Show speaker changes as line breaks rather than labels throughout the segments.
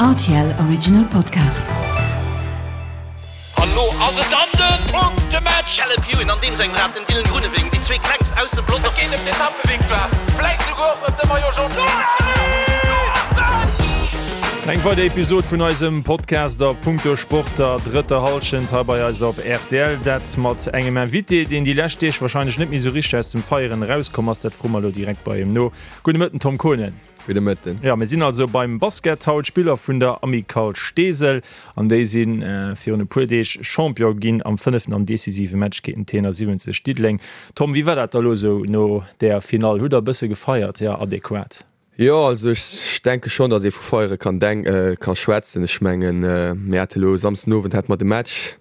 Rtl Original Podcast.
An lo ass et dann den Punktematch!
Caleb Ewan an deem sengem Rad den Dylan Groenewegen, déi zwee klengst aus dem Pelotong.
Et geet ëm d'Etappevictoire, vläit souguer och ëm de Maillot Jaune.
Eng weider Episod vun eisem Podcast a Punkto Sport der drëtter Hallschent hei bei eis op rtl. Dat mat engem Invité, deen déi lescht Deeg warscheinlech net méi sou richteg aus dem Feieren erauskomm ass. Dat froe mer elo direkt bei him no. Gudde Mëtten, Tom Konen.
Gudde Mëtten.
Jo, mir sinn also beim Basket haut, Spiller vun der Amicale Steesel, an déi si virun e puer Deeg Champion ginn am fënneften an decisive Match géint den T71 Diddeleng. Tom, wéi war dat da lo esou no där Finall? Hutt der e bësse gefeiert? Jo, adequat?
Jo, also ech denke schonn, datt ee vu feiere kann denk ka schwätzen. Ech mengen, mir hate lo Samsden Owend hate mer de Match.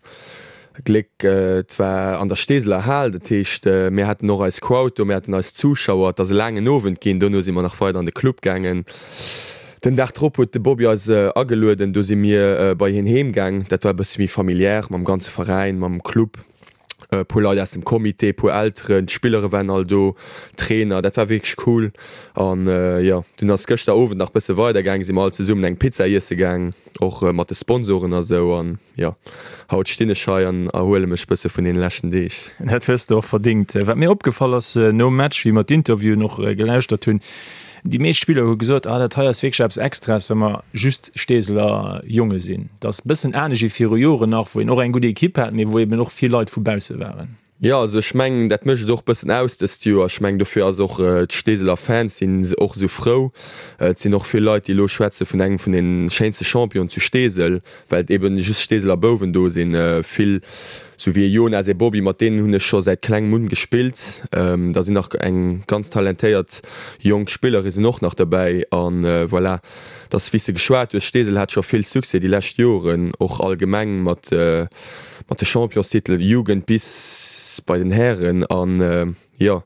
Gléck, et war an der Steeseler Hal, dat heescht mir haten och eis Crowd do, mir haten eis Zuschauer. Et ass e laangen Owend ginn, dono si mer nach weider an de Club gaangen. Den Dag drop huet de Bobby eis agelueden, do si mir bei hien heem gaang. Dat war e bësse méi familiär mam ganze Veräin, mam Club, e puer Leit aus dem Comité, e puer Elteren, d'Spillere waren all do, d'Trainer. Dat war wierklech cool. An jo, dunn ass gëschter Owend nach bësse weider gaang, si mer all zesummen eng Pizza iesse gaang, och mat de Sponsoren a sou. An Jo, haut stinn ech hei an erhuele mech bësse vun deene leschten Deeg.
Dat hues de och verdingt. Wat mir opgefall ass nom Match, wéi mer d'Interviewen och gelauschtert hunn, déi meescht Spiller hu gesot, ah dat hei ass wierklech eppes Extraes, well mer just Steeseler Jonge sinn. Dat ass e bëssen anescht wéi viru Joren nach, wou een och eng gutt Ekipp hat, mee wou eben och vill Leit vu bausse waren.
Jo, also ech mengen, dat mécht et och bëssen aus dëst Joer. Ech mengen, dofir ass och, d'Steeseler Fans sinn och esou frou. Et sinn och vill Leit, déi elo schwätze vun engem vun den schéinste Championen zu Steesel, well et eben just Steeseler Bouwen do sinn. Vill, sou wéi e Jonas, e Bobby, mat deenen hunn ech scho säit klengem un gespillt. Da sinn nach eng ganz talentéiert jonk Spillere sinn och nach derbäi. An voilà. Dass, wéi s de geschwat hues, Steesel hat scho vill Succès déi lescht Joren, och allgemeng mat mat de Championstitelen, Jugend bis bei den Hären. An jo,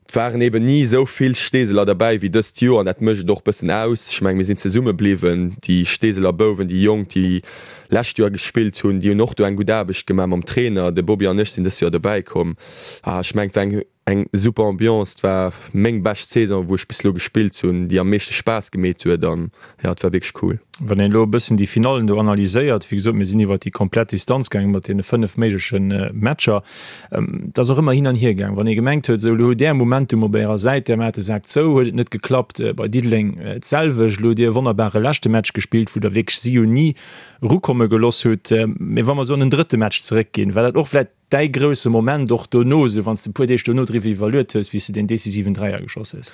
et waren eben ni esou vill Steeseler derbäi wéi dëst Joer an dat mécht et och bëssen aus. Ech menge mir sinn zesumme bliwwen, déi Steeseler Bouwen, déi Jonk, déi lescht Joer gespillt hunn, déi hunn och do eng gutt Aarbecht gemaach mam Trainer. De Bobby an ech sinn dëst Joer dobäi komm. A ech mengen, et war eng Eng super Ambiance, et war meng bescht Saison wou ech bis elo gespillt hunn, déi am meeschte Spaass gemeet huet an jo et war wierklech cool.
Wann een elo e bëssen déi Finallen do analyséiert, wéi gesot mir sinn iwwert déi komplett Distanz gaangen mat deene 5 méigleche Matcher, et ass och ëmmer hin an hier gaangen. Wann ee gemengt huet, esou elo hutt Där Momentum op Ärer Säit, Där maacht de Sak zou, huet et net geklappt. Bei Diddeleng d'selwecht. Elo hutt Dir e wonnerbare leschte Match gespillt, wou Der wierklech si jo ni erukomme geloss hutt. Mee wa mer esou an den drëtte Match zeréckginn, war dat och vläicht Däi grousse Moment och dono, esou wann s de e puer Deeg dono driwwer iwwerluet hues, wéi s de deen decisiven Dräier geschoss hues?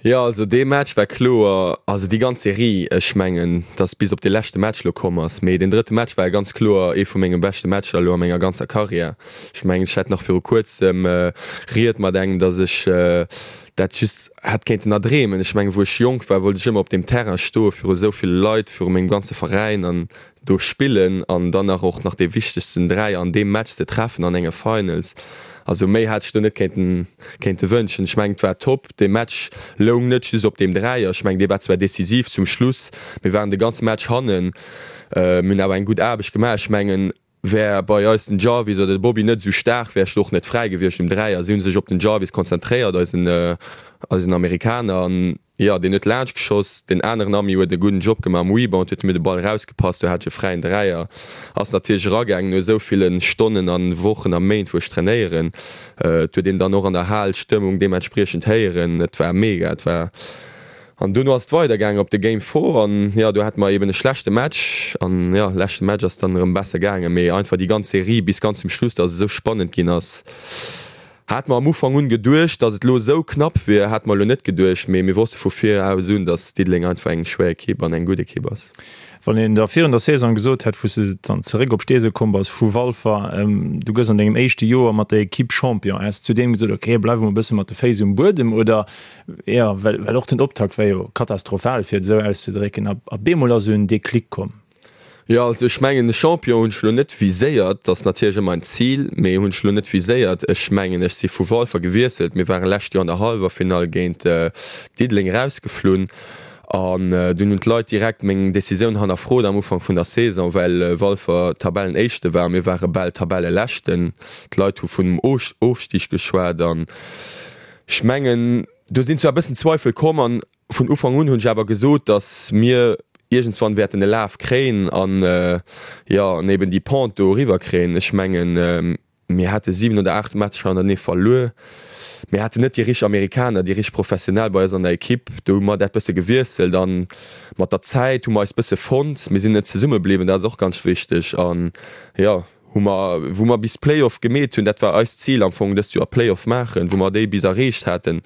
Jo, also dee Match war kloer, also déi ganz Serie, ech mengen, dass bis op dee leschte Match elo komm ass, mee deen drëtte Match war ganz kloer ee vu menge beschte Matcher elo a menger ganzer Karriär. Ech mengen, ech hat nach viru kuerzem Ried mat engem, dass ech dat just hätt kéinten erdreemen. Ech mengen, wou ech jonk war, wollt ech ëmmer op deem Terrain stoe viru esou ville Leit, viru mengem ganze Veräin an do spillen an dann nach och nach dee wichtegsten Dräier an deem Match ze treffen an enger Finals. Also méi hat ech do net kéinten kéinte wënschen. Ech mengen et war top. Dee Match loung net just op deem Dräier. Ech mengen dee war zwar decisiv zum Schluss, mir waren de ganze Match hannen, mir hunn awer eng gutt Aarbecht gemaach. Ech mengen wär bei eis den Jarvis oder de Bobby net esou staark, wär ech do och net fräi gewiescht um Dräier. Si hu sech op den Jarvis konzentréiert, eisen eisen Amerikaner an Jo, deen huet laanscht geschoss. Deen aneren Ami huet e gudden Job gemaach am Rebound, huet mir de Ball erausgepasst, do hat ech e fräien Dräier. Ass natierlech eragaangen no esou ville Stonnen a Wochen a Méint wou ech trainéieren. Et huet een dann och an der Hal d'Stëmmung deementspriechend héieren. Et war mega, et war an dono ass et weidergaangen op de Game 4 an jo, do hate mer eben e schlechte Match an jo, leschte Match ass dann erëm besser gaangen, mee einfach déi ganz Serie bis ganz zum Schluss, dass et esou spannend ginn ass. Hat mer am Ufank un geduecht, dass et lo esou knapp wier, hat mer lo net geduecht, mee mir wosste vu viraus un, dass Diddeleng einfach eng schwéier Ekipp an eng gutt Ekipp ass.
Wann een der virun der Saison gesot hätt, wou s de dann zeréck op Steesel komm bass vu Walfer, du gëss an dengem éischte Joer mat der Ekipp Champion, häss de zudeem gesot, ok, bleiwe mer e bësse mat de Féiss um Buedem oder, jo, well well och den Optakt war jo katastrophal, fir et esou auszedrécken, a bemol ass esou en Déclic komm.
Jo, also ech mengen de Champion hunn ech elo net viséiert, dat ass natierlech ëmmer en Zil, mee hunn ech elo net viséiert. Ech mengen ech si vu Walfer gewiesselt, mir ware lescht Joer an der Hallwerfinall géint Diddeleng erausgeflunn an dunn hunn d'Leit direkt meng Decisioun hannerfrot am Ufank vun der Saison, well Walfer Tabellenéischte war a mir ware bal Tabelleleschten. D'Leit hu vun einem Ofstig geschwat an ech mengen do sinn zwar e bëssen Zweifel komm an Vun Ufank un hunn ech awer gesot, datt mir. iergendswann wäerten e Laf kréien an, jo, an eben déi Pente do eriwwer kréien. Ech mengen, mir hate 7 oder 8 Matcher hannertenee verluer. Mir haten net déi richteg Amerikaner, déi richteg Professionell bei eis an der Ekipp. Do hu mer dat bësse gewiesselt an mat der Zäit hu mer eis bësse fonnt. Mir sinn net zesumme bliwwen, dat ass och ganz wichteg. An, jo, hu mer, wou mer bis Play-off gemeet hunn, dat war eist Zil am Fong dëst Joer, Play-off maachen, wou mer déi bis erreecht haten,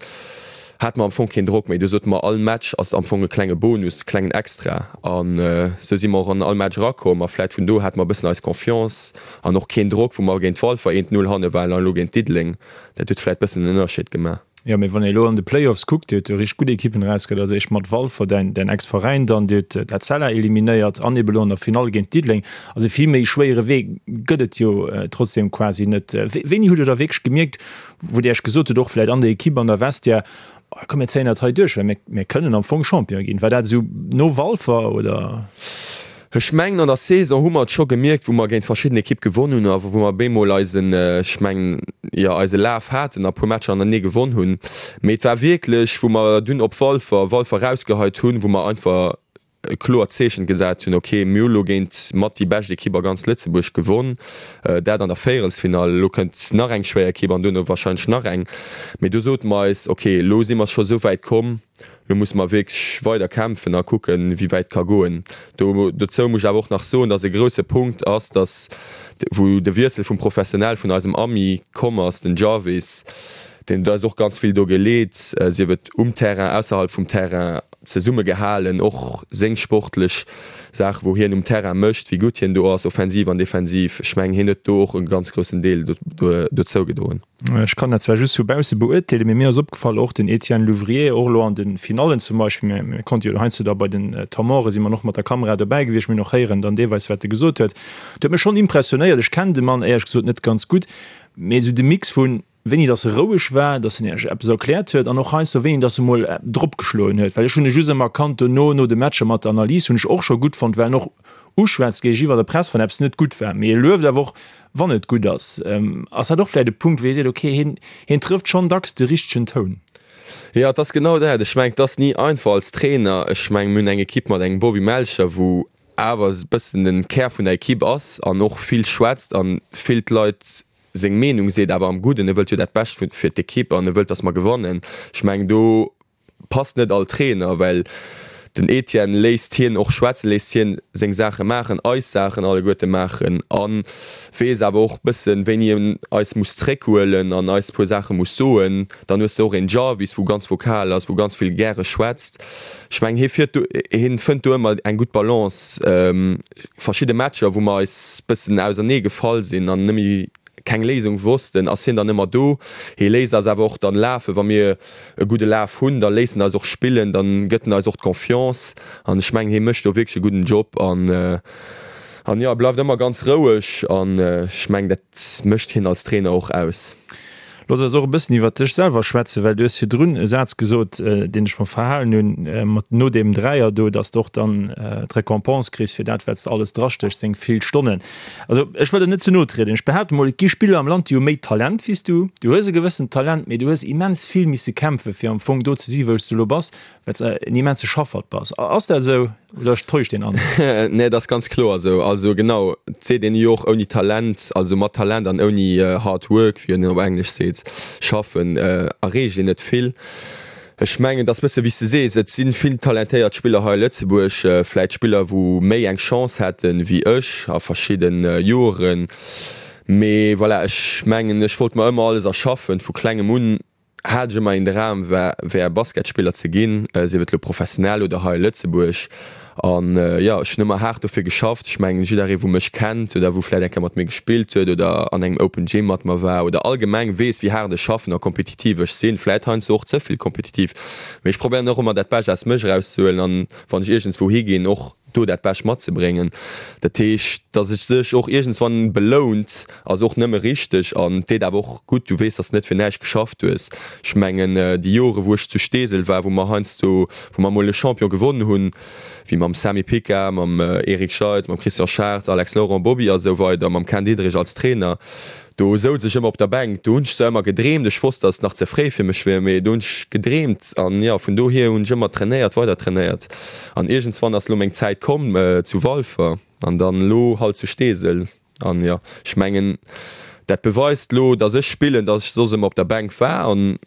hate mer am Fong keen Drock méi. Do sote mer, all Match ass am Fong e klenge Bonus, klengen Extra. An esou si mer och an all Match erakomm a vläit vun do hate mer e bëssen eis Confiance an och keen Drock, wou mer géint Walfer eent Null hanne waren an elo géint Diddeleng. Dat huet vläit bëssen en Ënnerscheed gemaach.
Jo, mee wann ee elo an de Playoffs kuckt, Dir hutt jo richteg gutt Ekippen erausgehtt, also éischt mat Walfer, däin, däin Ex-Veräin dann, Dir hutt d'Etzella eliminéiert an ebe elo an der Finall géint Diddeleng. Also vill méi schwéiere Wee gëtt et jo trotzdem quasi net. Wéini hutt Dir da wierklech gemierkt, wou Dir Iech gesot hutt, och vläicht an der Ekipp, an der Vestiaire, Oh, komm mir zéien dat hei duerch, well mir, mir kënnen am Fong Champion ginn. War dat esou no Walfer oder?
Ech mengen an der Saison hu mer et scho gemierkt, wou mer géint verschidden Ekipp gewonn hunn a wou mer bemol eisen, ech mengen, jo eise Laf haten a puer Matcher hannertenee gewonn hunn. Mee et war wierklech, wou mer dunn op Walfer, Walfer rausgeheit hunn, wou mer einfach e kloert Zeechen gesat hunn, ok, mir hu lo géint mat déi bescht Ekipp a ganz Lëtzebuerg gewonn, dat an der Véierelsfinall, elo kënnt nach eng schwéier Ekipp an duerno warscheinlech nach eng, mee do sote mer eis, ok, elo si mer scho sou wäit komm, elo musse mer wierklech weider kämpfen a kucken, wéi wäit et ka goen. Do dozou muss ech awer och nach soen, datt e grousse Punkt ass, datt wou de Wiessel vum Professionell vun eisem Ami komm ass, den Jarvis, deen huet eis och ganz vill do geleet, sief et um Terrain, ausserhalb vum Terrain, zesumme gehalen, och seng sportlech Saachen, wou hien um Terrain mécht, wéi gutt hien do ass, offensiv an defensiv. Ech mengen, hien huet do och e ganz groussen Deel dozou gedroen.
Ech kann dat zwar just vu bausse beurteelen, mee mir ass opgefall, och den Etienne Louvrier, och elo an de Finallen zum Beispill, mir konnte jo heiansdo da bei den Temps morte si mer och mat der Kamera dobäi gewiescht, mir hunn och héieren dann deelweis, wat e gesot huet. Dat huet mech schonn impressionéiert. Ech kennen de Mann éierlech gesot net ganz gutt, mee esou de Mix vun wéini dass e roueg war, dass en iech eppes erkläert huet an och heiansdo wéini dass e mol dropgeschloen huet, well ech hunn e just ëmmer erkannt dono, no de Matcher mat der Analys hunn ech och scho gutt fonnt, well en och uschwätzt géigeniwwer der Press, wann eppes net gutt war, mee e lueft awer och wann et gutt ass. Ass dat och vläicht e Punkt, wou ee seet, okay, hien, hien trëfft schonn dacks de richtegen Toun?
Jo, et ass genau dat. Ech mengen, et ass ni einfach als Trainer. Ech mengen, mir hunn eng Ekipp mat engem Bobby Melcher, wou awer e bëssen de Kär vun der Ekipp ass an och vill schwätzt an vill d'Leit seng Meenung seet, awer am Gudden, e wëllt jo dat Bescht fir d'Ekipp an e wëllt, datt mer gewannen. Ech mengen, do passt net all Trainer, well den Etienne léisst hien och schwätzen, léisst hien seng Saache maachen, eis Saachen alleguerte maachen a weess awer och bëssen, wéini en eis muss zréckhuelen an eis puer Saache muss soen. Dann hues de och een Jarvis, wou ganz vokal ass, wou ganz vill gäre schwätzt. Ech mengen, hie fiert do, hien fënnt do ëmmer eng gutt Balance. Verschidde Matcher, wou mer eis bëssen ausernee gefall sinn an net méi keng Léisung wossten, ass hien dann ëmmer do. Hie léisst eis awer och dann lafen. Wa mir e gudde Laf hunn, da léisst en eis och spillen, dann gëtt en eis och d'Confiance. An ech mengen, hie mécht do wierklech e gudden Job an, an jo, e bleift ëmmer ganz roueg an ech mengen, dat mécht hien als Trainer och aus.
Looss eis och e bëssen iwwert dech selwer schwätzen, well du hues virdrun e Saz gesot, deen ech mer verhalen hunn, mat no deem Dräier do, dass de och dann d'Récompense kriss fir dat, wat s de alles drastéchs, deng vill Stonnen. Also ech wëll der net ze no trieden, ech behaapte mol, et gi Spiller am Land, déi hu méi Talent wéi s du. Du hues e gewëssent Talent, mee du hues immens vill misse kämpfen, fir am Fong do ze si wou s du elo bass, well s de en immense Schaffert bass. Ass dat esou? Oder täuscht deen
Androck? Nee, et ass ganz kloer esou. Also genau, et seet een jo och ouni Talent, also mat Talent an ouni hard work, wéi een op Englesch seet, schaffen, erreecht een net vill. Ech mengen, et ass bësse wéi s de sees, et si vill talentéiert Spiller hei a Lëtzebuerg, vläit Spiller wou méi eng Chance hätten wéi ech a verschidde Joren. Mee voilà, ech mengen, ech wollt mer ëmmer alles erschaffen, vu klengem un. Hat ech ëmmer een Dram war wär Basketspiller ze ginn, sief et lo professionell oder hei a Lëtzebuerg. An jo, ech hunn ëmmer haart dofir geschafft. Ech mengen jidderee wou mech kennt oder wou vläit eng Kéier mat mir gespillt huet oder an engem Open Gym mat mer war oder allgemeng weess wéi haart ech schaffen a kompetitiv ech sinn, vläit heiansdo och ze vill kompetitiv, mee ech probéieren och ëmmer dat Bescht aus mech erauszehuelen an wann ech iergendswou higinn och do dat Bescht matzebréngen. Dat heescht, datt et sech och iergendswann belount, ass och nëmme richteg an deet awer och gutt. Du weess, datt s de net fir näischt geschafft hues. Ech mengen, déi Jore wou ech zu Steesel war, wou mer heiansdo, wou mer emol e Champion gewonnen hunn, wéi mam Samy Picard, mam Eric Scheitz, mam Christian Schartz, Alex Laurent, Bobby a sou weider, mam Ken Diederich als Trainer. Do souz ech ëmmer op der Bänk. Do hunn ech zwar ëmmer gedreemt, ech wosst, datt et nach ze fréi fir mech wier, mee do hunn ech gedreemt an jo, vun dohier hunn ech ëmmer trainéiert, weider trainéiert an iergendswann ass lo meng Zäit komm zu Walfer an dann elo halt zu Steesel an jo, ech mengen dat beweist lo, datt ech spillen, datt ech soss ëmmer op der Bänk war an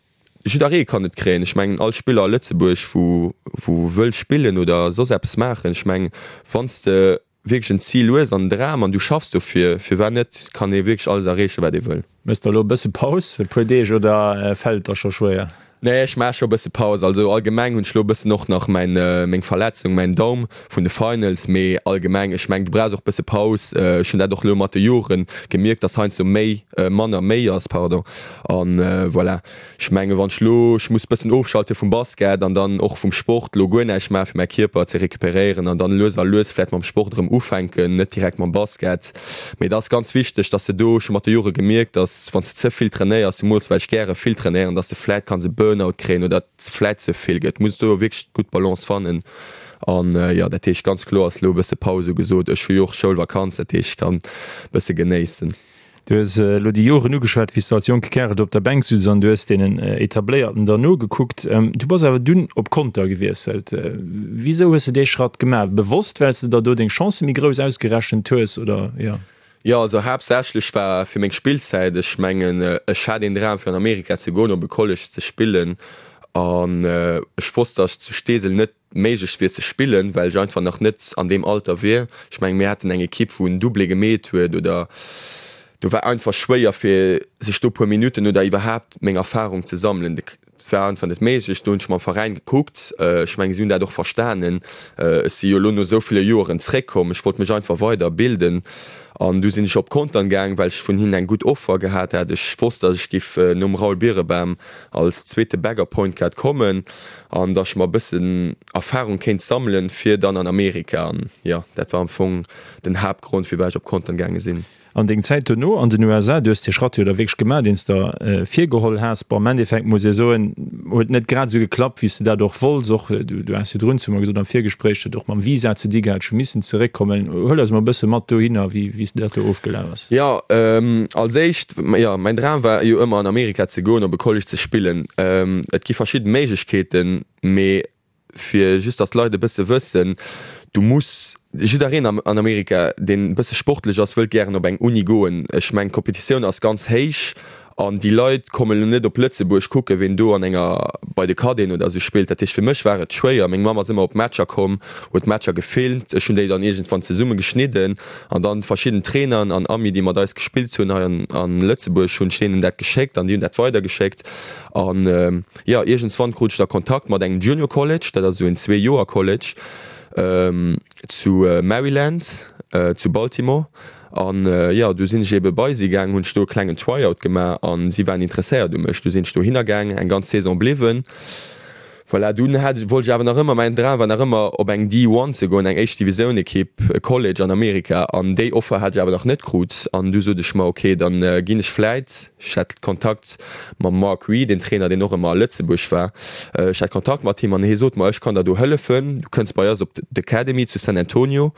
jidderee kann et kréien. Ech mengen all Spiller a Lëtzebuerg wou wou wëll spillen oder soss eppes maachen, ech mengen wann s de wierklech en Zil hues an en Dram an du schaffs dofir, firwat net, kann ee wierklech alles erreechen, wat ee wëll.
Méchs der elo e bësse Paus, e puer Deeg, oder fält et der scho schwéier?
Nee, ech maache scho e bësse Paus. Also allgemeng hunn ech elo e bëssen och nach mäin, meng Verletzung, mäin Daum vun de Finals, mee allgemeng, ech mengen, du brauchs och e bësse Paus. Ech hunn dat och elo mat de Jore gemierkt, dass heiansdo méi manner méi ass, pardon, an voilà. Ech mengen, wann ech lo, ech muss bëssen ofschalte vum Basket an dann och vum Sport, lo guer näischt maachen, fir mäi Kierper ze recuperéieren an dann lues a lues vläicht mam Sport erëm ufänken, net direkt mam Basket. Mee et ass ganz wichteg, dass de do, ech hu mat de Jore gemierkt, dass wann s de ze vill trainéiers, zemools well ech gäre vill trainéieren, dass de vläicht kanns e Burnout kréien oder et vläicht ze vill gëtt. Muss do wierklech d'gutt Balance fannen. An jo, dat heescht ganz kloer ass lo e bësse Paus ugesot. Ech hu jo och Schoulvakanz, dat heescht ech kann e bësse genéissen.
Du hues elo déi Joren ugeschwat, wéi s de als jonke Kärel do op der Bänk sutz an du hues deenen Etabléierten der nogekuckt. Du bass awer dunn op Conter gewiesselt. Wisou hues de dee Schratt gemaach? Bewosst, well s de der do deng Chancë méi grouss ausgerechent hues, oder? Jo.
Jo, also haaptsächlech war fir meng Spillzäit. Ech mengen, ech hat een Dram fir an Amerika ze goen, op e College ze spillen an ech wosst, datt ech zu Steesel net méiglech wier ze spillen, well ech einfach nach net an deem Alter wier. Ech mengen, mir haten eng Ekipp, wou en Doublé gemeet huet oder do war einfach schwéier fir sech do puer Minutten oder iwwerhaapt meng Erfarung ze sammelen. Et war einfach net méiglech. Do hunn ech mam Veräin gekuckt. Ech mengen, si hunn dat och verstanen. Ech si jo elo no esou ville Joeren zréckkomm. Ech wollt mech einfach weider bilden an du sinn ech op Contern gaang, well ech vun hinnen eng gutt Offer gehat hat. Ech wosst, datt ech giff nom Raoul Birebam als zweete Backup Point Guard kommen an datt ech mer e bëssen Erfahrung kéint sammelen fir dann an Amerika an jo dat war am Fong den Haaptgrond firwat ech op Compton gaange sinn.
An deng Zäit dono an den USA, du hues dee Schratt jo da wierklech gemaach deen s der virgeholl has, bon am Endeffekt muss ee soen, huet net grad esou geklappt wéi s de dat och wollts, och du has virdrun zu mer gesot am Virgespréich, huet och mam Visa ze di gehat, ech hu missen zeréckkommen. Huel eis mol e bësse mat dohinner wéi s dat do ofgelaf ass.
Jo, als éischt, jo, mäin Dram war jo ëmmer an Amerika ze goen, op e College ze spillen. Et gi verschidde Méiglechkeeten, mee fir just datt d'Leit e bësse wëssen, du muss, jiddereen an Amerika, deen e bësse sportlech ass, wëllt gären op eng Uni goen. Ech mengen, d'Kompetitioun ass ganz héich an déi Leit kommen elo net op Lëtzebuerg kucken, ween do an enger, bei de Cadeten oder esou spillt. Dat heescht, fir mech war et schwéier. Meng Mamm ass ëmmer op d'Matcher komm, huet d'Matcher gefilmt, ech hunn déi dann iergendwann zesumme geschnidden an dann verschidden Trainern an Amis, déi mat eis gespillt hunn hei an Lëtzebuerg, hunn ech deenen dat geschéckt an déi hunn dat weidergeschéckt. An jo, iergendswann krut ech da Kontakt mat engem Junior College, dat ass esou en Zweejoer-College zu Maryland, zu Baltimore. An jo, du sinn ech ebe bei si gaang, hunn ech do e klengen Tryout gemaach an si waren interesséiert u mech. Du sinn ech dohinner gaang, eng ganz Saison bliwwen. Voilà, dunn hat, wollt ech awer nach ëmmer, mäin Dram war nach ëmmer op eng D-One ze goen, eng éischt Divisioun Ekipp, e College an Amerika, an déi Offer hat ech awer nach net krut. An du sot ech mer, ok, dann ginn ech vläit, ech hat Kontakt mam Mark Reed, een Trainer deen och ëmmer a Lëtzebuerg war, ech hat Kontakt mat him an hie sot mer, ech kann der do hëllefen, du kënns bei eis op d'Academy zu San Antonio.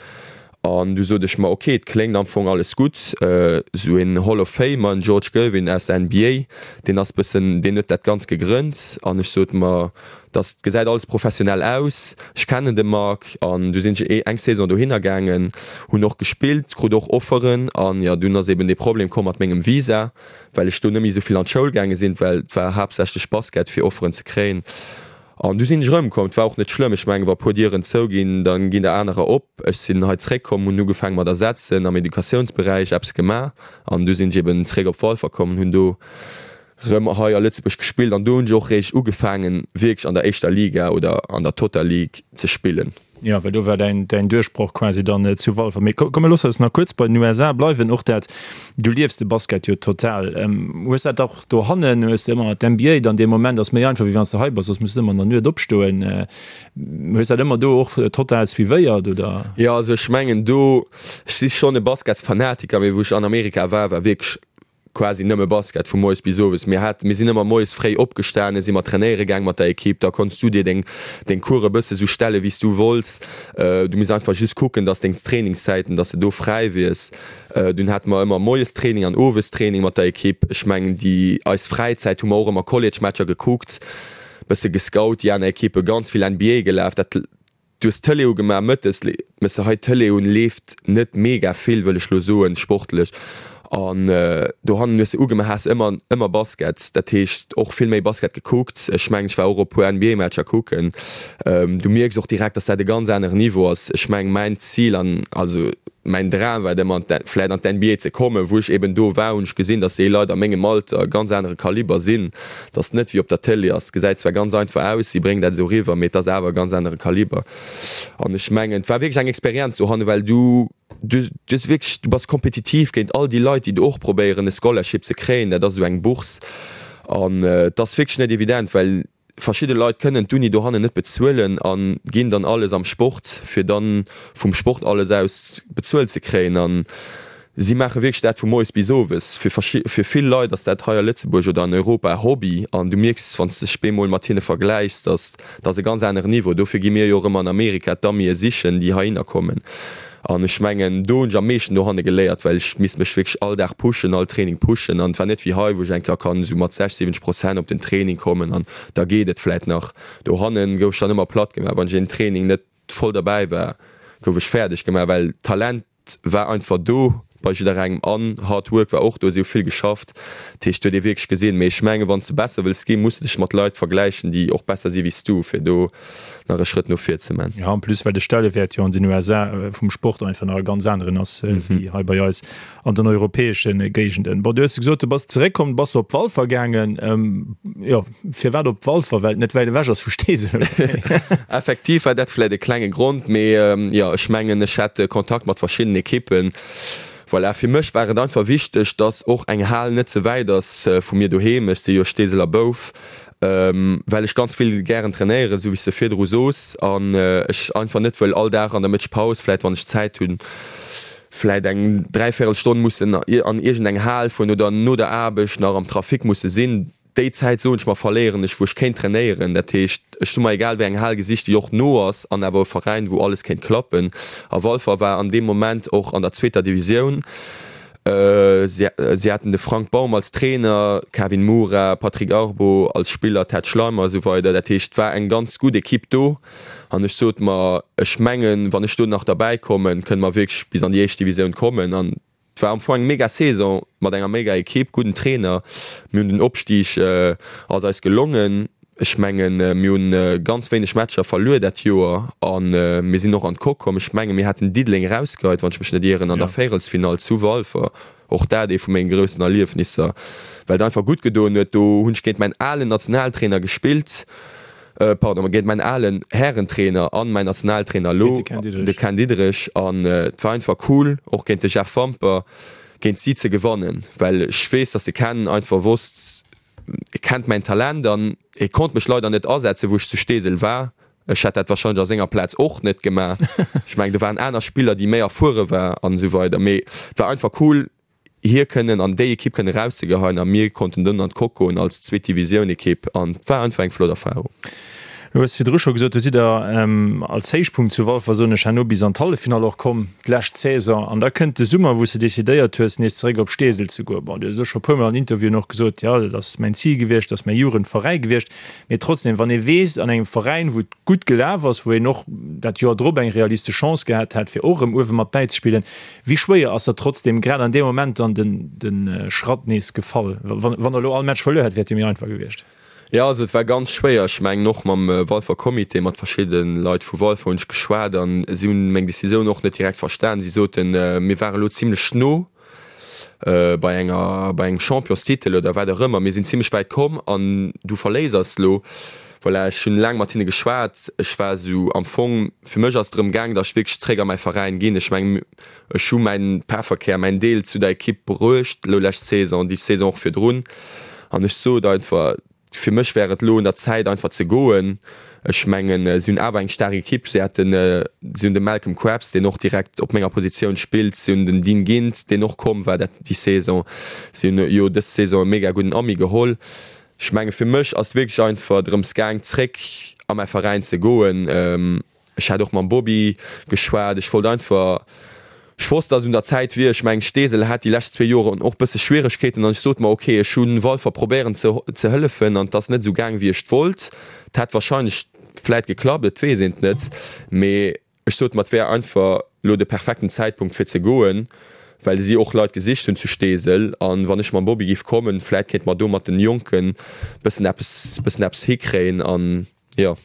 An du sot ech mer, ok, et kléngt am Fong alles gutt, esou een Hall of Famer, en George Gervin aus der NBA, deen ass bëssen, deen huet dat Ganzt gegrënnt. An ech sot mer, dass gesäit alles professionell aus, ech kennen de Marc. An du sinn ech eng Saison dohinner gaangen, hunn och gespillt, krut och Offeren. An jo, dunn ass eben dee Problem komm mat mengem Visa, well ech do net méi esou vill an d'Schoul gaange sinn, well et war haaptsächlech Basket fir Offeren ze kréien. An du sinn ech erëmkomm. Et war och net schlëmm. Ech mengen, wa puer Dieren zouginn, da ginn der anerer op. Ech sinn hei zréckkomm, hunn ugefaange mat ersetzen, am Educatiounsberäich eppes gemaach. An du sinn ech eben zréck op Walfer komm an hunn do erëm hei a Lëtzebuerg gespillt. An do hunn ech och réischt ugefaangen, wierklech an der éischter Liga oder an der Total League ze spillen.
Jo, well do war däin, däin Duerchbroch quasi dann zu Walfer. Mee komm, mir loosse eis nach kuerz bei den USA bleiwen. Och dat, du liefs de Basket jo total. Hues dat och dohannen? Hues de ëmmer d'NBA dann dee Moment ass méi einfach, wéi wann s de hei bass, soss muss de ëmmer an der Nuet opstoen. Hues dat ëmmer do och total suivéiert, oder?
Jo, also ech mengen do, ech si schonn e Basketsfanatiker, mee wou ech an Amerika war, war wierklech. quasi nëmme Basket vu moies bis owes. Mir hat, mir sinn ëmmer moies fréi opgestanen, si mer trainéiere gaang mat der Ekipp. Da konns du dir deng, deng Course e bësse sou stelle wéi s du wollts. Du misst einfach just kucken, dass deng Trainingszäiten, dass de do fräi wiers. Dunn hate mer ëmmer moies Training an owes Training mat der Ekipp. Ech mengen déi eis Fräizäit hu mer och ëmmer College-Matcher gekuckt, bësse gescout, déi aner Ekippe, ganz vill NBA gelaf. Dat Du hues d'Tëlee ugemaach mëttes, mëss se hei d'Tëlee un, leeft net mega vill, wëll ech lo soen, sportlech. An dohannen hues de ugemaach, has ëmmer, ëmmer Basket, dat heescht och vill méi Basket gekuckt. Ech mengen, ech war och op puer NBA-Matcher kucken. Du mierks och direkt, dass dat e ganz aneren Niveau ass. Ech mengen, mäin Zil an also mäin Dram war et ëmmer, vläit an d'NBA ze kommen. Wou ech eben do war, hunn ech gesinn, dass déi Leit a mengem Alter e ganz anere Kaliber sinn. Et ass net wéi op der Tëlee ass. Et gesäit zwar ganz einfach aus, si bréngen dat esou eriwwer, mee et ass awer e ganz anere Kaliber. An ech mengen, et war wierklech eng Experienz dohanne, well du, du hues wierklech, du bass kompetitiv géint all déi Leit, déi do och probéieren e Scholarship ze kréien. Dat ass esou eng Bourse. An et ass wierklech net evident, well Verschidde Leit kënnen d'Uni dohannen net bezuelen a ginn dann alles am Sport, fir dann vum Sport alles aus bezuelt ze kréien. A si maache wierklech dat vu moies bis owes. Fir fir vill Leit ass dat hei a Lëtzebuerg oder an Europa e Hobby an du mierks, wann s de dech bemol mat hinne vergläichs, dass dat ass e ganz aneren Niveau. Dofir gi mir jo och ëmmer an Amerika d'Amie sichen, déi heihinner kommen. An ech mengen, do hunn ech am meeschten dohanne geléiert, well ech misst mech wierklech all Dag pushen, all Training pushen. An et war net wéi hei, wou ech eng Kéier kann esou mat 60, 70 Prozent op den Training kommen an da geet et vläit nach. Dohanne gouf ech dann ëmmer platt gemaach. Wann ech een Training net voll derbäi war, gouf ech fäerdeg gemaach, well d'Talent war einfach do bei jidderengem an Hard Work war och do, si hu vill geschafft. Dat heescht, et huet ee wierklech gesinn. Mee ech mengen, wann s de besser wëlls ginn, muss de dech mat Leit vergläichen, déi och besser si wéi s du, fir do nach e Schrëtt no vir ze man.
Jo, en plus well de Stellewäert jo an den USA vum Sport einfach nach e ganz aneren ass wéi hei bei eis an den europäesche Géigenden. Bon, du hues gesot, du bass zeréckkomm, bass du op Walfer gaangen. Jo, firwat op Walfer? Well et net wäit ewech ass vu Steesel, oder wéi?
Effektiv war dat vläit e klenge Grond, mee jo, ech mengen, ech hat Kontakt mat verschiddenen Ekippen. Voilà, fir mech war et einfach wichteg, dass och eng Hal net ze wäit ass vu mir doheem. Ech si jo Steeseler Bouf. Well ech ganz vill gären trainéieren, esou wéi s de virdru soos, an ech einfach net wëll all Dag an der Mëttegpaus, vläit wann ech Zäit hunn, vläit eng dräivierel Stonn mussen an iergend eng Hal fueren oder no der Aarbecht nach am Trafic musse sinn. Déi Zäit, soen ech mer, verléieren ech, wou ech kéint trainéieren. Dat heescht, ech hu mer egal wéi eng Hal gesicht, déi och no ass an awer e Veräin, wou alles kéint klappen. A Walfer war an deem Moment och an der zweeter Divisioun. Si haten de Frank Baum als Trainer, Kevin Moura, Patrick Arbo als Spiller, Ted Schleimer a sou weider. Dat heescht, et war eng ganz gutt Ekipp do an ech sot mer, ech mengen, wann ech do nach derbäi kommen, kënne mer wierklech bis an déi éischt Divisioun kommen. An et war am Fong eng mega Saison mat enger mega Ekipp, gudden Trainer. Mir hunn den Opstig ass eis gelongen. Ech mengen, mir hunn ganz wéineg Matcher verluer dat Joer a mir sinn och an d'Coque komm. Ech menge mir haten Diddeleng erausgeheit, wann ech mech net ieren, an der Véierelsfinall zu Walfer. Och dat ee vu menge groussen Erliefnisser, well et einfach gutt gedoen huet. Do hunn ech géint mäin alen Nationaltrainer gespillt, pardon, géint mäin alen Härentrainer an mäin Nationaltrainer elo, de Ken Diederich. An et war einfach cool, och géint de Jeff Wamper, géint si ze gewannen, well ech weess, datt de Ken einfach wosst, E kennt mäin Talent an e konnt mech leider net asetzen, wou ech zu Steesel war. Ech hätt dat wahrscheinlech a senger Plaz och net gemaach. Ech mengen, do waren aner Spiller, déi méi erfuere war an esou weider. Mee et war einfach cool, hie kënnen an déi Ekipp kënnen erauszegeheien a mir konnten dunn an d'Coque goen als Zweet-Divisioun-Ekipp an et war einfach eng flott Erfarung.
Du hues virdru scho gesot, du sidd der als Héichpunkt zu Walfer, soen ech, herno bis an d'Halleffinall och komm, d'lescht Saison. An da kënnt de Summer, wou s de decidéiert hues, nees zeréck op Steesel ze goen. Bon, du hues elo scho e puermol an Interviewen och gesot, jo, dat ass mäin Zil gewiescht, dat ass mäi Jugendveräi gewiescht. Mee trotzdem, wann ee weess, an engem Veräin, wou et gutt gelaf ass, wou een och dat Joer drop eng realistesch Chance gehat hätt, fir och erëm uewe mat bäizespillen, wéi schwéier ass da trotzdem grad an deem Moment dann de Schratt nees gefall? Wann Der elo all Match verluer hätt, wär et jo méi einfach gewiescht.
Jo, also et war ganz schwéier. Ech mengen och mam Walfer Comité, mat verschidde Leit vu Walfer hunn ech geschwat an si hunn meng Decisioun och net direkt verstan. Si soten, mir ware lo zimlech no bei enger, bei engem Championstitel oder wat och ëmmer, mir sinn zimlech wäit komm an du verléiss eis lo. Voilà, ech hunn laang mat hinne geschwat. Ech war esou am Fong, fir mech ass et drëm gaang, datt ech wierklech zréck a mäi Veräin ginn. Ech mengen, ech hu mäin Pefferkär, mäin Deel zu der Ekipp bruecht, elo lescht Saison, déi Saison och virdrun. An ech sot einfach, Fir mech wär et elo un der Zäit einfach ze goen. Ech mengen, si hunn awer eng staark Ekipp. Si haten, si hunn de Malcolm Krabs, deen och direkt op menger Positioun spillt. Si hunn den Dean Gint, deen och komm war dat déi Saison. Si hunn jo dës Saison e mega gudden Ami geholl. Ech menge fir mech ass et wierklech einfach drëms gaang zréck a mäi Veräin ze goen. Ech hat och mam Bobby geschwat. Ech wollt einfach, ech wosst, dass et un der Zäit wier. Ech mengen, Steesel hat déi lescht zwee Joren och bësse Schwieregkeeten an ech sot mer, ok, ech hu Walfer probéieren ze ze hëllefen an et ass net esou gaang wéi ech wollt. Et hätt wahrscheinlech vläit geklappt, et weess een et net, mee ech sot mer, et wär einfach elo de perfekten Zäitpunkt fir ze goen, well si och Leit gesicht hunn zu Steesel an wann ech mam Bobby giff kommen, vläit kéinte mer do mat den Jonken bëssen eppes bëssen eppes hikréien an jo.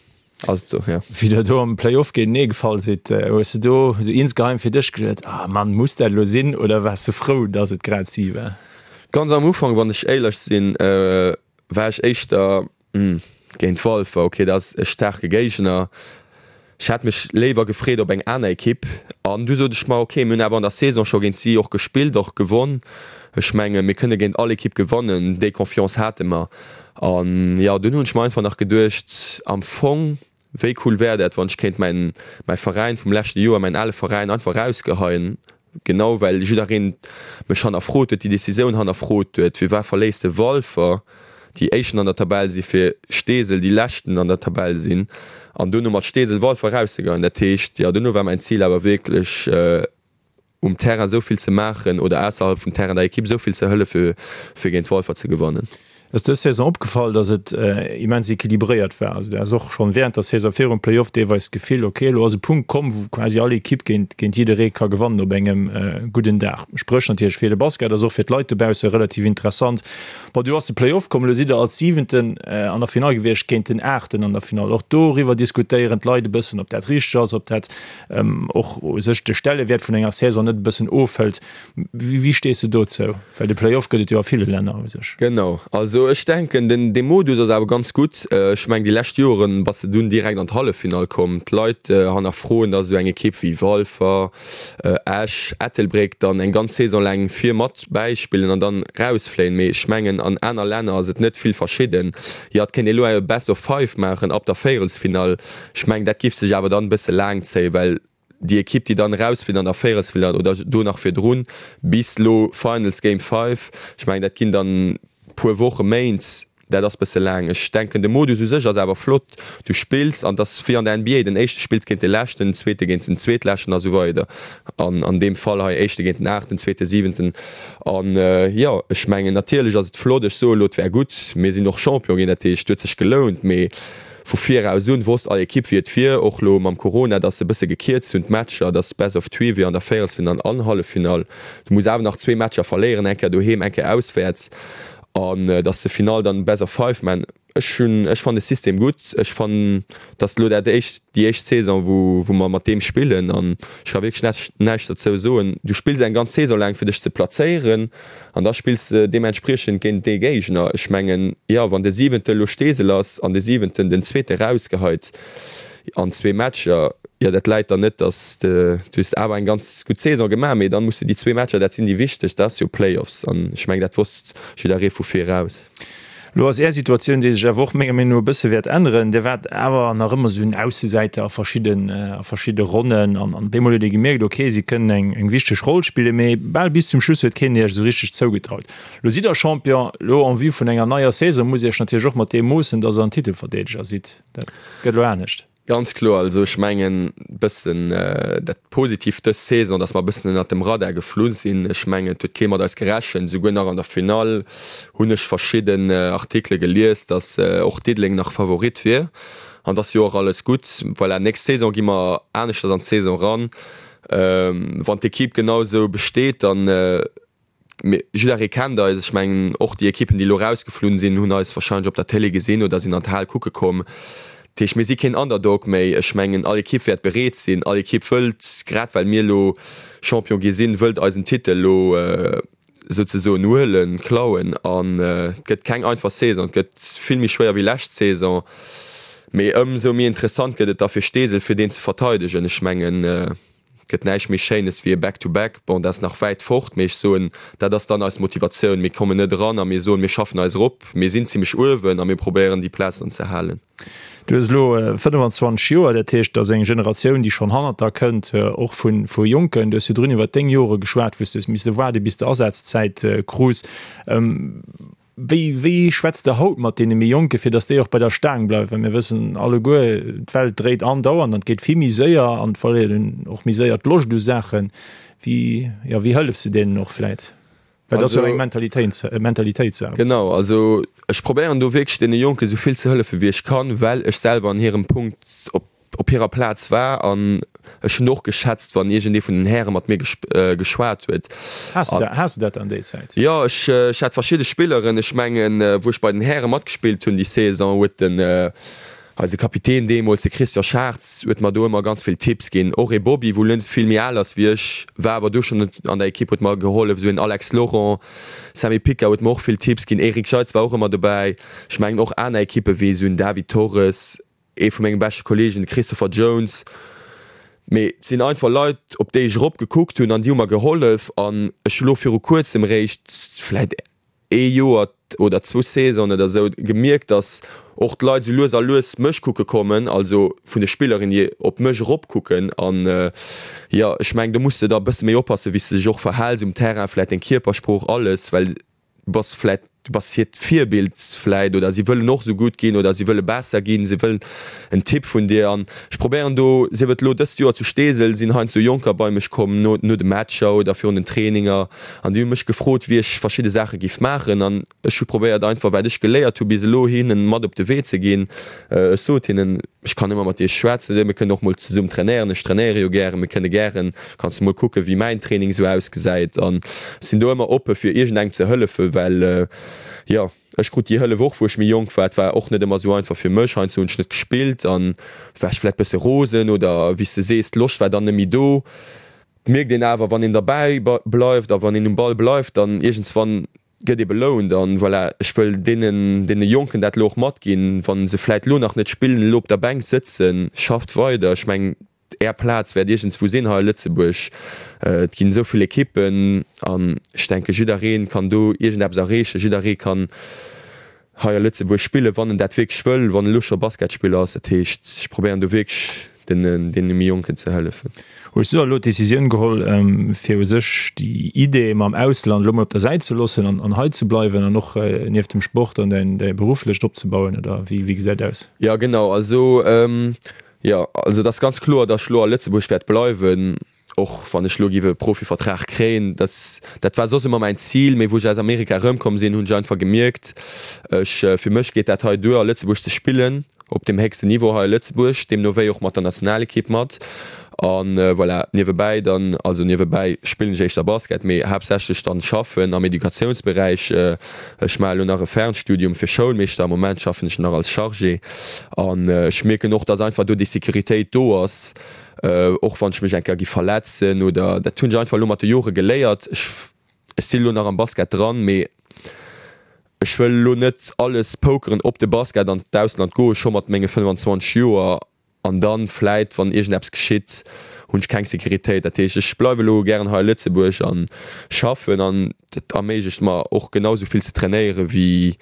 Ass et sou, jo.
Wéi der do am Play-Off géintenee gefall sidd, hues de do sou insgeheim fir dech geduet, Ah Mann, muss dat elo sinn? Oder waars de frou, dass et grad si war?
Ganz am Ufank, wann ech éierlech sinn, war ech éischter, Hm, géint Walfer, ok, dat ass e staarke Géigner. Ech hätt mech léiwer gefreet op eng aner Ekipp. An du sot ech mer, ok, mir hunn awer an der Saison scho géint si och gespillt, och gewonn. Ech menge mir kënne géint all Ekipp gewannen, déi Confiance hate mer. An jo, dunn hunn ech mer einfach nach geduecht, am Fong, wéi cool wär dat, wann ech kéint mäin, mäi Veräin vum leschte Joer, mäin ale Veräin einfach erausgeheien, genau well jiddereen mech hannerfrot huet, déi Decisioun hannerfrot huet, firwat verléisst de Walfer, déi Éischten an der Tabell si fir Steesel, déi Leschten an der Tabell sinn, an duerno mat Steesel Walfer erauszegeheien. Dat heescht, jo, duerno war mäin Zil awer wierklech, um Terrain esou vill ze maachen oder ausserhalb vum Terrain der Ekipp esou vill ze hëllefe fir géint Walfer ze gewannen.
Ass dës Saison opgefall, dass et immens equilibréiert war? Also du has och schonn während der Saison virum Playoff deelweis d'Gefill, ok, elo ass e Punkt komm, wou quasi all Ekipp géint géint jidderee ka gewannen op engem gudden Dag. Spréch natierlech fir de Basket, ass och fir d'Leit dobausse relativ interessant. Bon, du ass de Playoff komm, elo sidd der als Siwenten an der Finall gewiescht géint den Aachten an der Finall. Och doriwwer diskutéieren d'Leit e bëssen, ob dat richteg ass, ob dat och u sech de Stellewäert vun enger Saison net e bëssen ofhëlt. Wéi stees de dozou? Well de Play-off gëtt et jo a ville Länner u sech.
Genau, also ech denken den dee Modus ass awer ganz gutt. Ech mengen déi lescht Joren bass de dunn direkt an d'Halleffinall komm. D'Leit hannerfroen, datt esou eng Ekipp wéi Walfer, Esch, Ettelbréck dann eng ganz Saison laang vir mat bäispillen an dann rausfléien. Mee ech mengen an aner Länner ass et net vill verschidden. Jo et kéint ee lo e Best of Five maachen ab der Véierelsfinall. Ech mengen, dat giff sech awer dann e bësse laang zéien, well déi Ekipp, déi dann erausflitt an der Véierelsfinall oder do nach virdrun, bis lo Finals, Game Five, ech mengen, dat ginn dann puer Wochen, Méint, dat ass bësse laang. Ech denken, de Modus u sech ass awer flott. Du spills an et ass wéi an der NBA, den Éischte spillt géint de Leschten, den Zweete géint den Zweetleschten a sou weider. An an deem Fall hei Éischte géint den Aachten, Zweete, Siwenten. An jo, ech mengen, natierlech ass et flott, ech soe lo, et wär gutt, mir sinn och Champion ginn, dat heescht, et huet sech gelount, mee Vu viraus un wosst all Ekipp wéi et wier, och lo mam Corona, dass se e bësse gekierzt hunn d'Matcher, dass Best of Three wier an der Véierelsfinall an Halleffinall. Du muss awer nach zwee Matcher verléieren, eng Kéier doheem, eng Kéier auswäerts, an dass de Finall dann Best of Five man. Ech hunn, ech fannen de System gutt, ech fannen dass lo dat éischt, déi éischt Saison wou wou mer mat deem spillen an ech ka wierklech näischt näischt derzou soen. Du spills eng ganz Saison laang fir dech ze plazéieren. An da spills de deementspriechend géint dee Géigner. Ech mengen, jo, wann de Siwente elo Steesel ass an de Siwenten den Zweete rausgeheit an zwee Matcher, jo, dat läit dann net, datt de, du hues awer eng ganz gutt Saison gemaach, mee dann muss de déi zwee Matcher, dat sinn déi wichteg, dat ass jo Playoffs. An ech mengen, dat wosst jidderee vu viraus.
Elo ass Är Situatioun, déi sech awer och menger Meenung no e bësse wäert änneren. Dir waart awer nach ëmmer esou en Aussesäiter a verschidden, a verschidde Ronnen an an op eemol huet ee gemierkt, ok, si kënnen eng, eng wichteg Roll spillen, mee bal bis zum Schluss huet keen Iech esou richteg zougetraut. Elo sidd Der Champion, elo en vue vun enger neier Saison musst Iech natierlech och mat deem moossen, datt Der en Titelverdeedeger sidd. Dat gëtt elo anescht.
Ganz kloer. Also ech mengen bëssen dat Positivt dës Saison, datt mer bëssen ënnert dem Radar geflu sinn. Ech mengen et huet kee mat eis gerechent. Souguer nach an der Finall hunn ech verschidden Artikele gelies, datt och Diddeleng nach Favorit wier. An et ass jo och alles gutt. Voilà, nächst Saison gi mer aneschters an d'Saison ran. Wann d'Ekipp genau esou besteet, dann Mee jidderee kennt eis. Ech mengen, och déi Ekippen, déi elo erausgeflunn sinn, hunn eis warscheinlech op der Télé gesinn oder sinn an d'Hal kucke komm. Dat heescht, mir si keen Underdog méi. Ech mengen, all Ekipp wäert bereet sinn, all Ekipp wëllt, grad well mir elo Champion gi sinn, wëllt eisen Titel elo souzesoen huelen, klauen. An et gëtt keng einfach Saison, et gëtt vill méi schwéier wéi lescht Saison. Mee ëmsou méi interessant gëtt et da fir Steesel, fir deen ze verteidegen. Ech mengen. Gëtt näischt méi Schéines wéi e Back-to-back. Bon, dat ass nach wäit fort, mee ech soen, dat ass dann eis Motivatioun. Mir kommen net eran a mir soen, mir schaffen eis erop. Mir sinn zimmlech uewen a mir probéieren déi Plaz dann ze halen.
Du hues elo 25 Joer, dat heescht, et ass eng Generatioun, déi schonn hannert der kënnt, och vu Jonken. Du hues virdrun iwwer deng Jore geschwat, wou s du hues misse waarde bis de Asazzäit krus. Wéi, wéi schwätzt Der haut mat deene méi Jonken, fir datt déi och bei der Staang bleiwen? Well mir wëssen alleguer, d'Welt dréit andauernd an et geet vill méi séier an et verléiert een och méi séier d'Loscht u Saachen. Wéi, jo, wéi hëllefs de deenen och vläit? Well dat ass jo eng Mentalitéitssaach.
Genau, also ech probéieren do wierklech deene Jonken esou vill ze hëllefen, wéi ech kann, well ech selwer an hirem Punkt op op hirer Plaz war an ech hunn och geschätzt, wann iergendee vun den Häre mat mir geschwat huet.
Has de has de dat dann déi Zäit?
Jo, ech ech hat verschidde Spilleren. Ech mengen, wou ech bei den Häre matgespillt hunn déi Saison, huet den eise Kapitän deemools, de Christian Schartz, huet mer do ëmmer ganz vill Tipps ginn. Och ee Bobby, wou elo net vill méi al ass wéi ech, war awer do schonn an der Ekipp, huet mer gehollef. Esou een Alex Laurent, Sammy Picker huet mer och vill Tipps ginn, Eric Jeitz war och ëmmer dobäi. Ech mengen och aner Ekippe wéi esou en David Torres, Ee vu menge beschte Kollegen, de Christopher Jones. Mee et sinn einfach Leit, op déi ech erop gekuckt hunn an déi hu mer gehollef. An ech hu lo viru kuerzem eréischt, vläit ee Joer oder zwou Saisonen oder esou, gemierkt, datt och d'Leit esou lues a lues mech kucke kommen, also vun de Spillerinnen, déi op mech erop kucken. An jo, ech mengen, do muss de da e bësse méi oppassen, wéi s de dech och verhäls um Terrain, vläit deng Kierpersprooch, alles, well du bass vläit, du bass hiert Virbild vläit oder si wëllen och esou gutt ginn oder si wëlle besser ginn, si wëllen en Tipp vun dir an ech probéieren do, sief et elo dëst Joer zu Steesel, sinn heiansdo Jonker bei mech komm no no de Matcher oder virun den Traininger an déi hu mech gefrot, wéi ech verschidde Saache giff maachen an ech hu probéiert einfach wat ech geléiert hu bis elo hinnen mat op de Wee ze ginn. Ech sot hinnen, Ech kann ëmmer mat iech schwätzen, mir kënnen och mol zesumm trainéieren, ech trainéiere jo gären, mir kënne gären, kanns de mol kucken, wéi mäin Training esou ausgesäit an ech sinn do ëmmer oppe fir iergendengem ze hëllefen, well jo, ech krut déi Hëllef och wou ech méi jonk war, et war och net ëmmer esou einfach fir mech, heiansdo hunn ech net gespillt an war ech vläit bësse rosen oder wéi s de sees, d'Loscht war dann net méi do. Et mierkt een awer, wann een derbäi bleift a wann een um Ball bleift, dann iergendswann gëtt ee belount an voilà, ech wëll deenen, deene Jonken dat elo och matginn, wa se vläit elo nach net spillen, elo op der Bänk sëtzen, schafft weider, ech mengen Är Plaz wäert iergendswou sinn hei a Lëtzebuerg, et ginn esou vill Ekippen an ech denke jidderee kann do iergendeppes erreechen, jidderee kann hei a Lëtzebuerg spillen, wann en dat wierklech wëll, wann en elo scho Basketspiller ass. Dat heescht, ech probéieren do wierklech deene méi Jonken ze hëllefen.
Hues du da elo d'Decisioun geholl, fir u sech déi Idee mam Ausland elo mol op der Säit ze loossen an hei ze bleiwen an och nieft dem Sport dann däin berufflecht opzebauen, oder wéi gesäit aus?
Jo genau, also jo, also et ass ganz kloer, datt ech elo a Lëtzebuerg wäert bleiwen. Och wann ech elo giff e Profivertrag kréien, dat dat war soss ëmmer mäin Zil, mee wou ech aus Amerika erëmkomm sinn, hunn ech einfach gemierkt, ech fir mech geet dat hei duer a Lëtzebuerg ze spillen, op deem héchsten Niveau hei a Lëtzebuerg, deemno wéi och mat der Nationalekipp mat. An voilà, niewebäi dann, also niewebäi spillen ech éischter Basket, mee haaptsächlech dann schaffen am Educatiounsberäich. Ech maache elo nach e Fernstudium fir Schoulmeeschter, am Moment schaffen ech nach als Chargé an ech mierken och, dass einfach do déi Sécuritéit do ass, Och wann ech mech eng Kéier gi verletzen oder dat hunn ech einfach elo mat de Jore geléiert. Ech ech sinn elo nach am Basket dran, mee ech wëll elo net alles pokeren op de Basket an d'Ausland goe scho mat menge 25 Joer an dann vläit wann iergendeppes geschitt hunn ech keng Sécuritéit. Dat heescht ech bleiwe elo gären hei a Lëtzebuerg an schaffen an dat erméiglecht mer och genau esou vill ze trainéiere wéi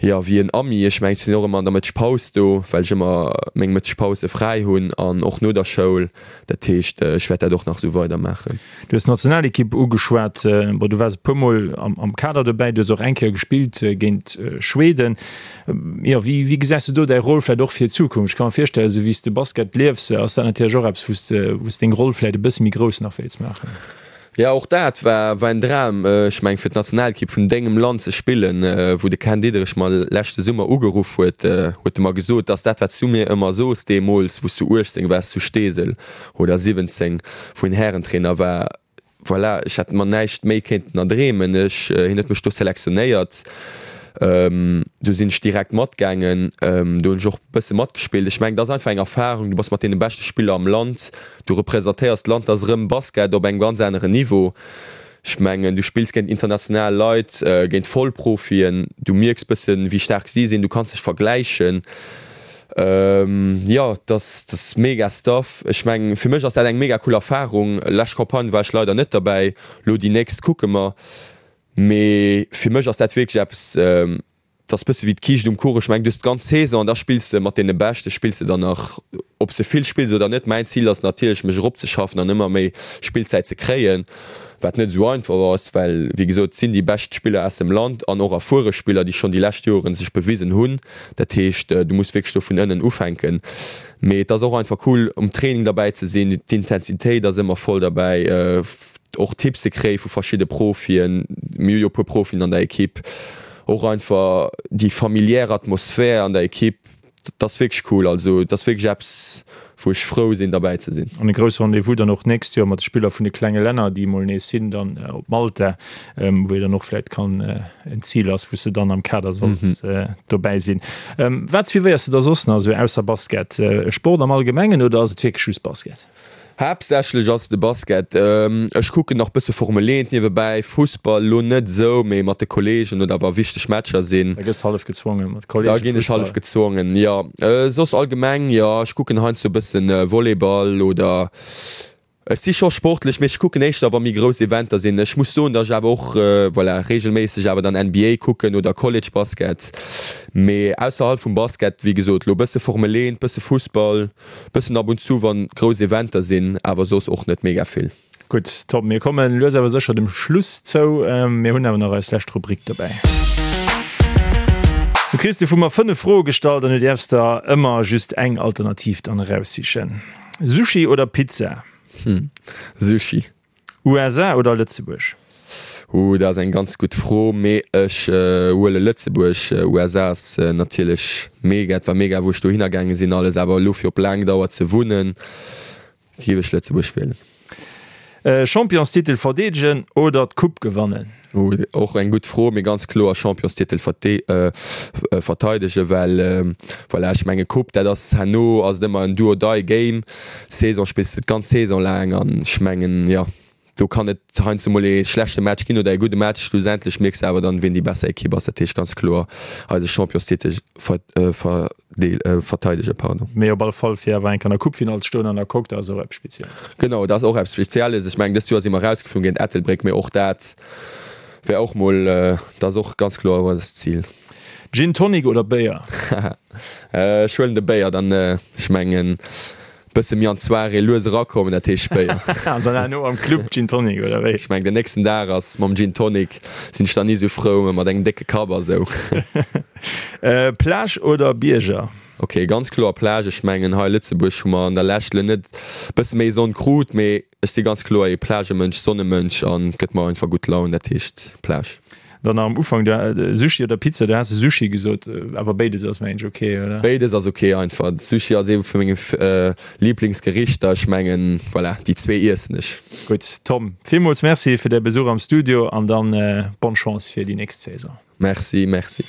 Jo, wéi en Ami. Ech mengen, ech sinn och ëmmer an der Mëttegpaus do, well ech ëmmer meng Mëttegpause fräi hunn an och no der Schoul. Dat heescht, ech wäert dat och nach esou weidermaachen.
Du hues d'Nationalekipp ugeschwat. Bon, du waars e puer Mol am Kader dobäi, du hues och eng Kéier gespillt géint Schweden. Jo, wéi, wéi gesäis du do däi Rôle vläicht och fir d'Zukunft? Ech ka mer virstellen, esou wéi s de Basket liefs, ass dat natierlech och eppes, wou s de, wou s deng Roll vläicht e bësse méi grouss nach wéilts maachen.
Jo, och dat war war en Dram. Ech mengen, fir d'Nationalekipp vun dengem Land ze spillen. Wou de Ken Diederich mer leschte Summer ugeruff huet, huet e mer gesot, dass dat, wat s du mir ëmmer sos deemools, wou s du 18 waars zu Steesel oder 17, wou hien Härentrainer war, voilà, ech hätt mer näischt méi kéinten erdreemen. Ech, hien huet mech do selektionéiert, do sinn ech direkt matgaangen, do hunn ech och e bësse matgespillt. Ech mengen, dat ass einfach eng Erfarung, du bass mat deene beschte Spiller am Land. Du representéiers d'Land, dat ass erëm Basket op engem ganz aneren Niveau. Ech mengen, du spills géint international Leit, géint Vollprofien, du mierks bëssen, wéi staark si sinn, du kanns dech vergläichen. Jo, dat ass mega Stuff. Ech mengen, fir mech ass dat eng mega cool Erfarung. Lescht Campagne war ech leider net derbäi, lo déi nächst kucke mer. Mee fir mech ass dat wierklech eppes, dat ass bësse wéi d'Kiischt um Kuch. Ech mengen, du hues d'ganz Saison an da spills de mat deene Beschte spills de dann nach, ob s de vill spills oder net. Mäin Zil ass natierlech, mech eropzeschaffen an ëmmer méi Spillzäit ze kréien. Wat net esou einfach ass, well wéi gesot, et sinn déi bescht Spiller aus dem Land an och erfuere Spiller, déi schonn déi lescht Joren sech bewisen hunn. Dat heescht, du muss wierklech do vun ënnen ufänken. Mee et ass och einfach cool, um Training derbäi ze sinn. D'Intensitéit ass ëmmer voll derbäi, och Tipps ze kréie vu verschidde Profien. Mir hu jo e puer Profien an der Ekipp. Och einfach déi familiär Atmosphär an der Ekipp. Dat ass wierklech cool. Also et ass wierklech eppes, wou ech frou sinn derbäi ze sinn.
An e grousse Rendez-vous dann och d'nächst Joer mat de Spiller vun de klenge Länner, déi emol nees sinn, dann op Malta, wou ee dann och vläicht kann en Zil ass, wou s de dann am Kader solls dobäi sinn. Wat suivéiers de da soss nach esou ausser Basket? Sport am Allgemengen oder ass et wierklech just Basket?
Haaptsächlech ass et de Basket. Ech kucken nach bësse Formel 1 niewebäi, Fussball lo net esou, mee mat de Kollegen oder wa wichteg Matcher sinn.
Da gëss hallef gezwongen mat Kollegen
Fussball. Da ginn ech hallef gezwongen, jo. Soss allgemeng, jo, ech kucken heiansdo e bëssen Volleyball oder ech si scho sportlech, mee ech kucken éischter wa méi grouss Eventer sinn. Ech muss soen, datt ech awer och, voilà, reegelméisseg awer dann NBA kucken oder College Basket. Mee ausserhalb vum Basket, wéi gesot, lo bësse Formel 1, bësse Fussball. Bëssen ab und zu wann grouss Eventer sinn, awer soss och net mega vill.
Gutt, top. Mir kommen lues awer sécher dem Schluss zou. Mir hunn awer nach eis lescht Rubrik dobäi. Du kriss de vu mer 5 Froe gestallt an du däerfs der ëmmer just eng Alternativ dann eraussichen. Sushi oder Pizza?
Sushi.
USA oder Lëtzebuerg?
Ooh, dat ass eng ganz gutt Fro, mee ech huele Lëtzebuerg. USA ass natierlech mega, et war mega wou ech dohinner gaange sinn alles, awer elo fir op laang Dauer ze wunnen, géif ech Lëtzebuerg wielen.
Championstitel verdeedegen oder d'Coupe gewannen?
Ooh, och eng gutt Fro, mee ganz kloer Championstitel verteidegen, well voilà, ech menge Coupe, dat ass herno ass et ëmmer en do or die Game. Saison spills de d'ganz Saison laang an ech mengen, jo, do kann et heiansdo mol ee schlechte Match ginn oder ee gudde Match. Schlussendlech mierks de awer dann, wien déi besser Ekipp ass. Dat heescht ganz kloer eise Championstitel verteidegen. Pardon.
Mee op alle Fall fir awer eng Kéier an der Coupefinall ze stoen an der Coque, dat ass och eppes Spezielles.
Genau, dat ass och eppes Spezielles. Ech mengen, dëst Joer si mer erausgeflunn géint Ettelbréck, mee och dat wär och mol, dat ass och ganz kloer eist Zil.
Gin Tonic oder Béier?
Ech huelen de Béier dann, ech mengen bësse méi an d'Soirée lues erakommen, dat heescht Béier.
An dann herno am Club Gin Tonic oder wéi?
Ech mengen den nächsten Dag ass mam Gin Tonic sinn ech dann ni sou frou, mä mat engem décke Kapp a sou.
Plage oder Bierger?
Ok, ganz kloer Plage. Ech mengen hei Lëtzebuerg hu mer an der Lescht lo net bësse méi Sonn krut, mee Ech si ganz kloer ee Plagemënsch, Sonnemënsch an gëtt mer einfach gutt Laun, dat heescht Plage.
Dann nach am Ufank, du, Sushi oder Pizza, du has Sushi gesot, awer béides ass mengen ech ok, oder?
Béides ass ok einfach. Sushi ass ee vu menge Liblingsgerichter, ech mengen voilà, déi zwee iessen ech.
Gutt Tom, villmools Merci fir däi Besuch am Studio an dann bonne Chance fir déi nächst Saison.
Merci, merci.